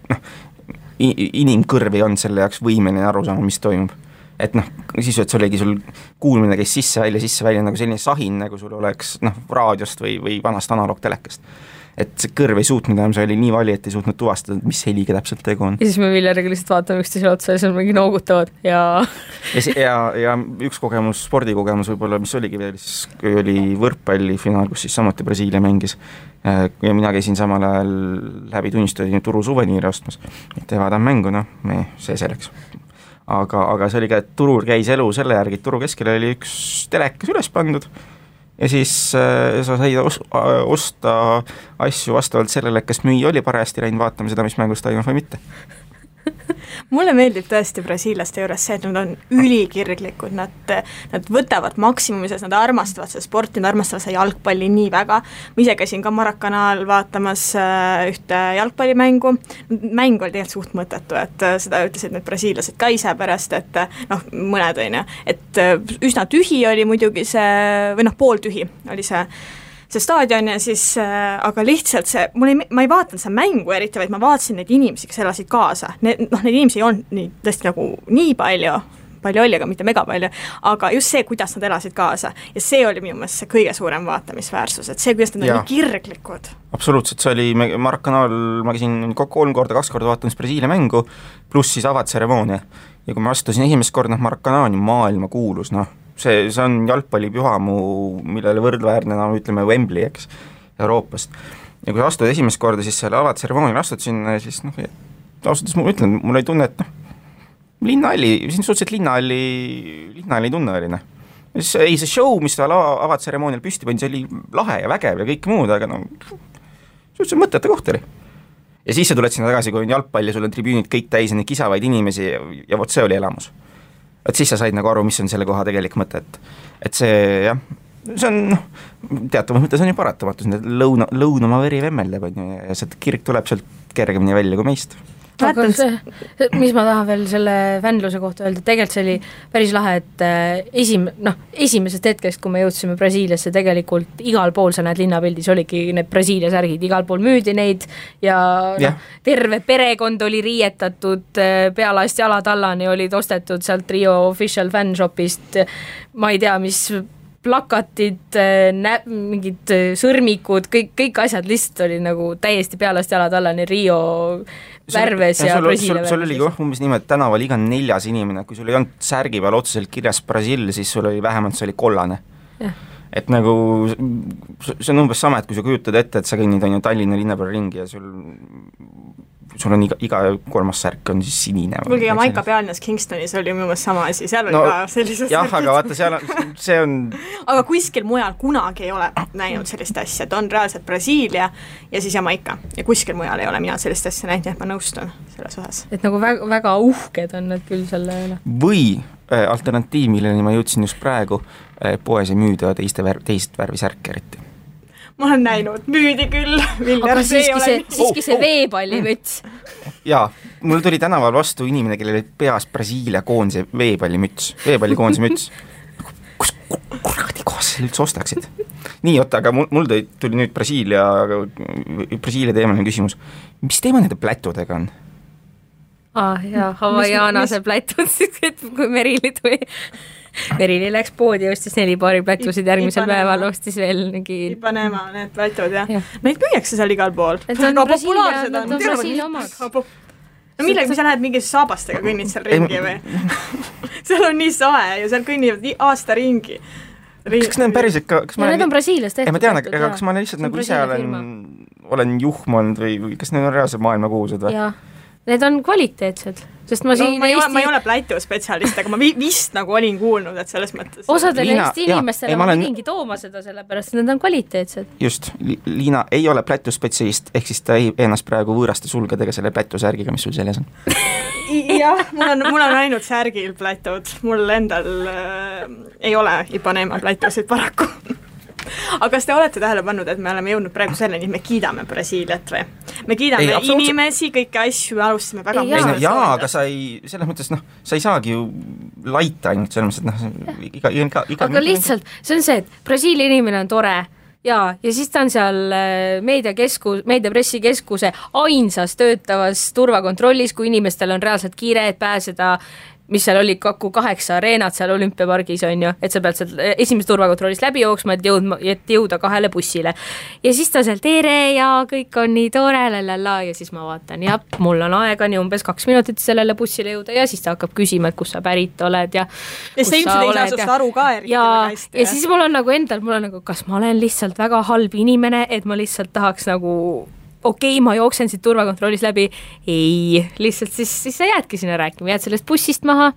inimkõrv ei olnud selle jaoks võimeline aru saama, mis toimub. Et siis, et sul oligi sul kuulmine käis sisse-välja nagu selline sahin, nagu sul oleks raadiost või vanast analoogtelekast. Et see kõrv ei suutnud enam, see oli nii vali, et ei suutnud tuvastada, mis heliga täpselt tegu on. Ja siis me Viljariga lihtsalt vaatame üksteisele otsa ja siis mingi noogutavad ja üks kogemus, spordikogemus võib-olla, mis oligi veel, siis oli võrkpallifinaal, kus siis samuti Brasiilia mängis ja mina käisin samal ajal läbi tunnistada Turu suveniiri ostmas, et vaatan mängu, see selleks. Aga see oli ka, et Turul käis elu selle järgi, et Turu keskele oli üks telekas üles pandud ja siis sa said osta asju vastavalt sellele, kas müüja oli parajasti läinud vaatama seda, mis mängus toimub või mitte. Mulle meeldib tõesti brasiilaste juures see, et nad on ülikirglikud, nad võtavad maksimumises, nad armastavad seda sporti, nad armastavad seda jalgpalli nii väga. Ma ise käisin ka Maracanaal vaatamas ühte jalgpallimängu, mäng oli tegelikult suht mõttetu, et seda ütlesid need brasiilased ka ise pärast, et mõned on ju, et üsna tühi oli muidugi see, või pooltühi oli see staadion ja siis, aga lihtsalt ma ei vaatanud seda mängu eriti, vaid ma vaatasin neid inimesi, kes elasid kaasa. Need inimesi ei olnud tõesti nagu nii palju oli, aga mitte mega palju, aga just see, kuidas nad elasid kaasa. Ja see oli minu meelest see kõige suurem vaatamisväärsus, et see, kuidas nad on nii kirglikud. Absoluutselt, see oli Maracanaal, ma käisin 2 korda vaatamas Brasiilia mängu, pluss siis avatseremoonia. Ja kui ma astusin esimest korda Maracanaal, maailma kuulus, see on jalgpallipühamu, millele võrdväärne, ütleme Wembley, eks, Euroopast. Ja kui astud esimest korda, siis selle avatseremoonial astud sinna, siis ausalt ma ütlen, mul ei tunne, et linnahalli, siin suhteliselt linnahalli tunne oli. Ei, see show, mis ta avatseremoonial püsti pani, see oli lahe ja vägev ja kõik muud, aga suhteliselt mõtete koht oli. Ja siis sa tuled sinna tagasi, kui on jalgpall ja sul on tribüünid kõik täis ja neid kisavaid inimesi ja vot see oli elamus. Et siis sa said nagu aru, mis on selle koha tegelik mõte, et see see on teatavas mõttes on ju paratamatus, lõunama veri vemmeldab ja see kirg tuleb sealt kergemini välja kui meist. Aga see, mis ma tahan veel selle fännluse kohta öelda, tegelikult see oli päris lahe, et esimesest hetkest, kui me jõudsime Brasiiliasse, tegelikult igal pool sa näed linnapildis oligi need Brasiilia särgid, igal pool müüdi neid ja terve perekond oli riietatud, pealast jalatallani olid ostetud sealt Rio Official Fan Shopist, ma ei tea, mis plakatid, mingid sõrmikud, kõik asjad lihtsalt oli nagu täiesti pealast jalad alla, nii Rio värves ja Brasiilia sul oli umbes niimoodi, et tänaval iga 4. inimene, kui sul ei olnud särgi peal otseselt kirjas Brasiil, siis sul oli vähemalt, see oli kollane. Et nagu see on umbes sama, et kui sa kujutad ette, et sa kõnnid on ju Tallinna linna peal ringi ja sul on iga 3. särk on siis sinine. Kuulge, ja Maika Pealnas Kingstonis oli minu meelest sama asi, seal oli ka sellised jah, aga vaata, see on aga kuskil mujal kunagi ei ole näinud sellist asja, et on reaalselt Brasiilia ja siis Jamaika ja kuskil mujal ei ole mina sellist asja näinud, et ma nõustun selles osas. Et nagu väga uhked on need küll selle üle. Või alternatiiv, milleni ma jõudsin just praegu, poes ei müüda teist värvi särke eriti. Ma olen näinud, müüdi küll. Aga siiski see veepallimüts. Jaa, mul tuli tänaval vastu inimene, kellel oli peas Brasiilia koondise veepallikoondise müts. Kus kuradi kohas sa üldse ostaksid? Nii, oota, aga mul tuli nüüd Brasiilia teemaline küsimus. Mis teema nende plätudega on? Jaa, Havaianase plätud, kui Merili läks poodi ja ostis 4 paari plätusid, järgmisel päeval ostis veel Ipanema, need plätud, jah. Neid müüakse seal igal pool. Need on Brasiilia omad. No millega, sa lähed mingi saabastega kõnnid seal ringi või? Seal on nii sae ja seal kõnnivad aasta ringi. Kas need on päris ikka... Need on Brasiilias tehtud. Ma tean, aga kas ma lihtsalt nagu ise olen juhmond või kas need on reaalselt maailmakuulsad või? Jaa. Need on kvaliteetsed, sest ma ei ole plätu spetsialist, aga ma vist nagu olin kuulnud, et selles mõttes osadele Eesti inimestele ma pidingi tooma seda sellepärast, et need on kvaliteetsed. Just, Liina ei ole plätu spetsialist, ehk siis ta ei ennast praegu võõraste sulgedega selle plätu särgiga, mis sul seljas on. Jah, mul on ainult särgil plätud, mul endal ei ole Ipanema plätusid paraku. Aga kas te olete tähele pannud, et me oleme jõudnud praegu selleni, et me kiidame Brasiiliat või? Me kiidame inimesi, kõiki asju, me alustame väga jaa, aga selles mõttes, sa ei saagi ju laita ainult selles mõttes, et aga lihtsalt, see on see, et Brasiilia inimene on tore ja siis ta on seal meediapressikeskuse ainsas töötavas turvakontrollis, kui inimestel on reaalselt kiire, et pääseda mis seal oli kokku 8 areenat seal olümpiapargis on ju, et sa pead seal esimese turvakontrollist läbi jooksma, et jõuda 2 bussile. Ja siis ta seal tere ja kõik on nii tore, ja siis ma vaatan, jah, mul on aega nii umbes 2 minutit sellele bussile jõuda ja siis ta hakkab küsima, et kus sa pärit oled ja kus sa oled. Ja see aru ka eriti väga hästi. Ja siis mul on nagu kas ma olen lihtsalt väga halb inimene, et ma lihtsalt tahaks nagu ma jooksen siit turvakontrollis läbi, ei, lihtsalt siis sa jäädki sinna rääkima, jääd sellest bussist maha,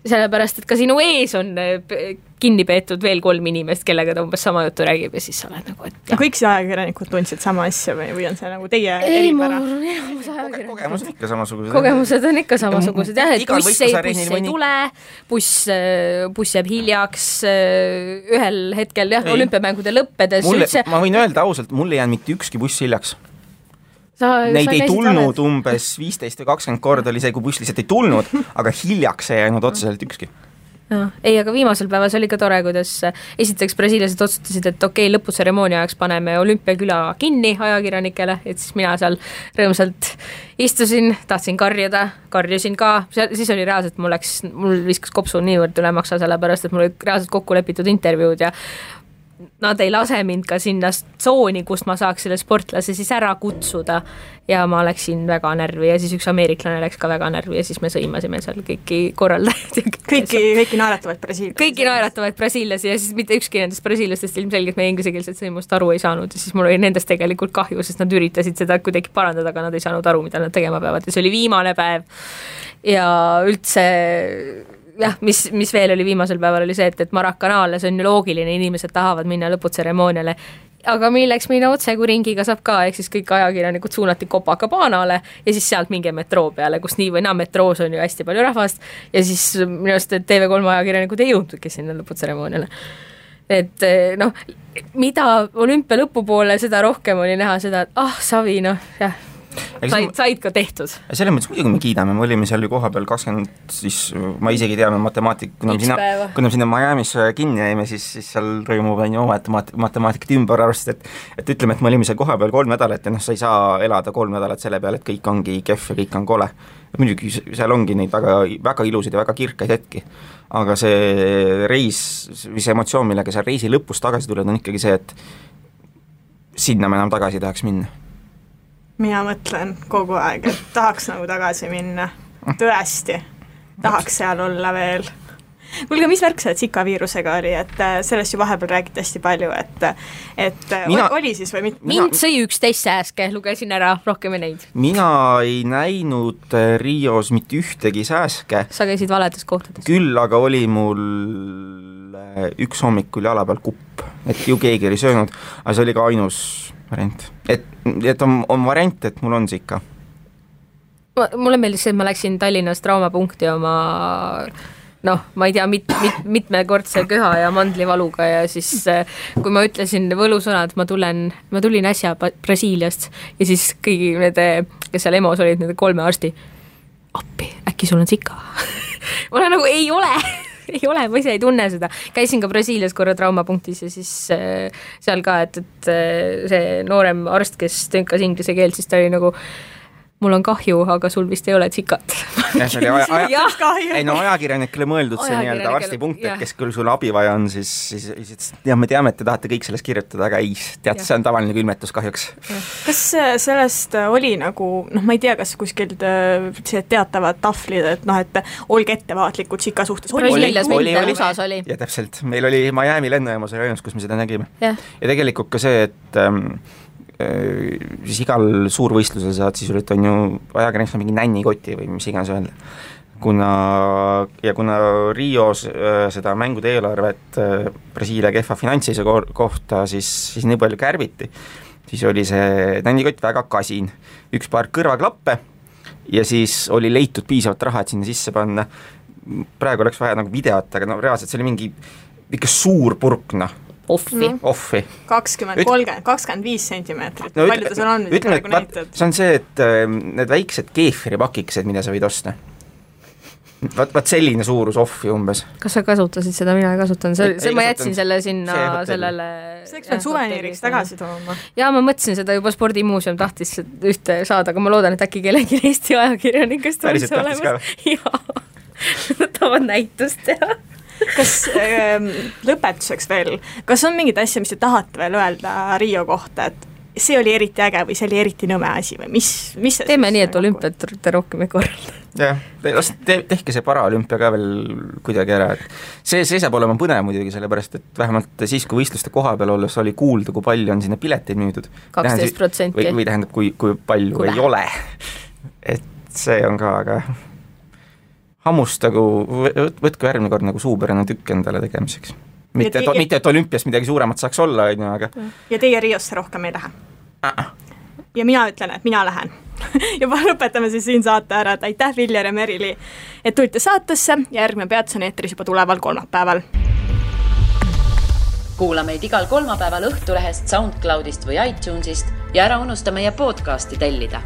sellepärast, et ka sinu ees on kinni peetud veel 3 inimest, kellega ta umbes sama juttu räägib ja siis sa oled nagu, et kõik see ajakirjanikud tundsid sama asja või on see nagu teie eripära? Kogemused ikka samasugused. Kogemused on ikka samasugused, jah, et buss ei tule, buss jääb hiljaks ühel hetkel, jah, olümpiamängude lõppedes. Ma võin öelda ausalt, mul ei jäänud mitte ükski buss hiljaks. Neid ei tulnud umbes 15 või 20 korda oli see, kui buss lihtsalt ei tulnud, aga hiljaks ei jäänud otseselt ükski. Ei, aga viimasel päevas oli ka tore, kuidas esiteks brasiilased otsustasid, et lõputseremoonia ajaks paneme olümpiaküla kinni ajakirjanikele, et siis mina seal rõõmsalt istusin, tahtsin karjusin ka, siis oli reaalselt, mul viskas kopsu niivõrd üle maksa, sellepärast, et mul oli reaalselt kokku lepitud intervjuud ja nad ei lase mind ka sinna tsooni, kust ma saaks selle sportlase siis ära kutsuda ja ma läksin väga närvi ja siis üks ameeriklane läks ka väga närvi ja siis me sõimasime seal kõiki korraldajad. Kõiki naeratavaid brasiillasi. Kõiki naeratavaid brasiillasi ja siis mitte ükski nendest brasiillastest ilmselgelt meie ingliskeelset sõimust aru ei saanud ja siis mul oli nendest tegelikult kahju, sest nad üritasid seda kuidagi parandada, aga nad ei saanud aru, mida nad tegema peavad ja see oli viimane päev ja üldse jah, mis veel oli viimasel päeval oli see, et Maracanaale, see on ju loogiline, inimesed tahavad minna lõputseremooniale, aga milleks minna otse, kui ringiga saab ka, ehk siis kõik ajakirjanikud suunati Copacabanale ja siis sealt mingi metroo peale, kus nii või naa metroos on ju hästi palju rahvast ja siis minu arust TV3 ajakirjanikud ei jõudnudki sinna lõputseremooniale. Et mida olümpia lõpupoole, seda rohkem oli näha seda, et Savi, jah. said ka tehtud. Selles mõttes muidugi me kiidame, me olime seal ju koha peal 20, siis ma isegi teame kuna sinna Miami'sse kinni jäime, siis seal toimub oma matemaatikat ümber arvestada, et ütleme, et me olime seal koha peal 3 nädalat ja sa ei saa elada 3 nädalat selle peale, et kõik ongi kehv ja kõik on kole. Muidugi seal ongi neid väga ilusaid ja väga kirkaid hetki, aga see reis, mis emotsioon, millega seal reisi lõpus tagasi tuled, on ikkagi see, et sinna me enam tagasi tahaks minna. Mina mõtlen kogu aeg, et tahaks nagu tagasi minna. Tõesti, tahaks seal olla veel. Kuulge, mis värk see Zika viirusega oli, et sellest ju vahepeal räägiti hästi palju, et oli siis või mitte? Mind sõi 11 sääske, lugesin ära, rohkem ei neid. Mina ei näinud Rios mitte ühtegi sääske. Sa käisid valedes kohtades. Küll aga oli mul üks hommikul jala peal kupp, et ju keegi oli söönud, aga see oli ka ainus variant. Et on variant, et mul on Zika. Mulle meeldis see, et ma läksin Tallinnast traumapunkti oma ma ei tea, mitmekordse köha ja mandlivaluga ja siis kui ma ütlesin võlusõnad, ma tulin äsja Brasiiliast ja siis kõigi nende, kes seal EMO-s olid, nende 3 arsti, appi, äkki sul on Zika? Ma olen nagu, ei ole, ma ise ei tunne seda. Käisin ka Brasiilias korra traumapunktis ja siis seal ka, et see noorem arst, kes tõnkas inglise keelt, siis ta oli nagu, mul on kahju, aga sul vist ei ole Zikat. Ajakirjanikele mõeldud see nii-öelda arstipunkt, et kes küll sul abi vaja on, siis ja me teame, et te tahate kõik sellest kirjutada, aga ei, tead, see on tavaline külmetus kahjuks. Kas sellest oli nagu, ma ei tea, kas kuskil teatavad tahvlid, et olge ettevaatlikud Zika suhtes. Oli. Ja täpselt, meil oli Miami lennujaamas rajons, kus me seda nägime. Ja tegelikult ka see, et siis igal suurvõistlusel saad sisuliselt on ju ajakirjaniks mingi nännikoti või mis iganes öelda. Kuna Rios seda mängude eelarvet Brasiilia kehva finantsise kohta siis nii palju kärbiti, siis oli see nännikott väga kasin. Üks paar kõrvaklappe ja siis oli leitud piisavalt raha, et sinna sisse panna. Praegu oleks vaja nagu videot, aga reaalselt see oli mingi ikka suur purk, Offi. 20, 30, 25 sentimeetrit. Palju ta seal on? See on see, et need väiksed keefiripakikesed, mida sa võid osta. Vaat selline suurus offi umbes. Kas sa kasutasid seda? Mina ei kasutanud. Ma jätsin selle sinna sellele... See eks suveniiriks tagasi tooma. Ja ma mõtlesin seda juba spordimuuseum tahtis ühte saada, aga ma loodan, et äkki kellegi Eesti ajakirjanikest on see olemas. Jaa, tavad näitust teha. Kas lõpetuseks veel, kas on mingid asja, mis te tahate veel öelda Rio kohta, et see oli eriti äge või see oli eriti nõme asi või mis see teeme nii, et olümpiat rohkem ei korralda. Jah, tehke see paraolümpia ka veel kuidagi ära, et see saab olema põnev muidugi, sellepärast et vähemalt siis, kui võistluste koha peal olles oli kuulda, kui palju on sinna pileteid müüdud. 12%. Või tähendab, kui palju ei ole. Et see on ka, aga hammustagu, võtku järgmine kord nagu suupärane tükk endale tegemiseks. Mitte, et olümpias midagi suuremat saaks olla, aga... Ja teie Riosse rohkem ei lähe? Ja mina ütlen, et mina lähen. Juba lõpetame siis siin saate ära, et aitäh Viljar ja Merili, et tulite saatesse ja järgmine peatus on eetris juba tuleval kolmapäeval. Kuula meid igal kolmapäeval Õhtulehest, SoundCloudist või iTunesist ja ära unusta meie podcasti tellida.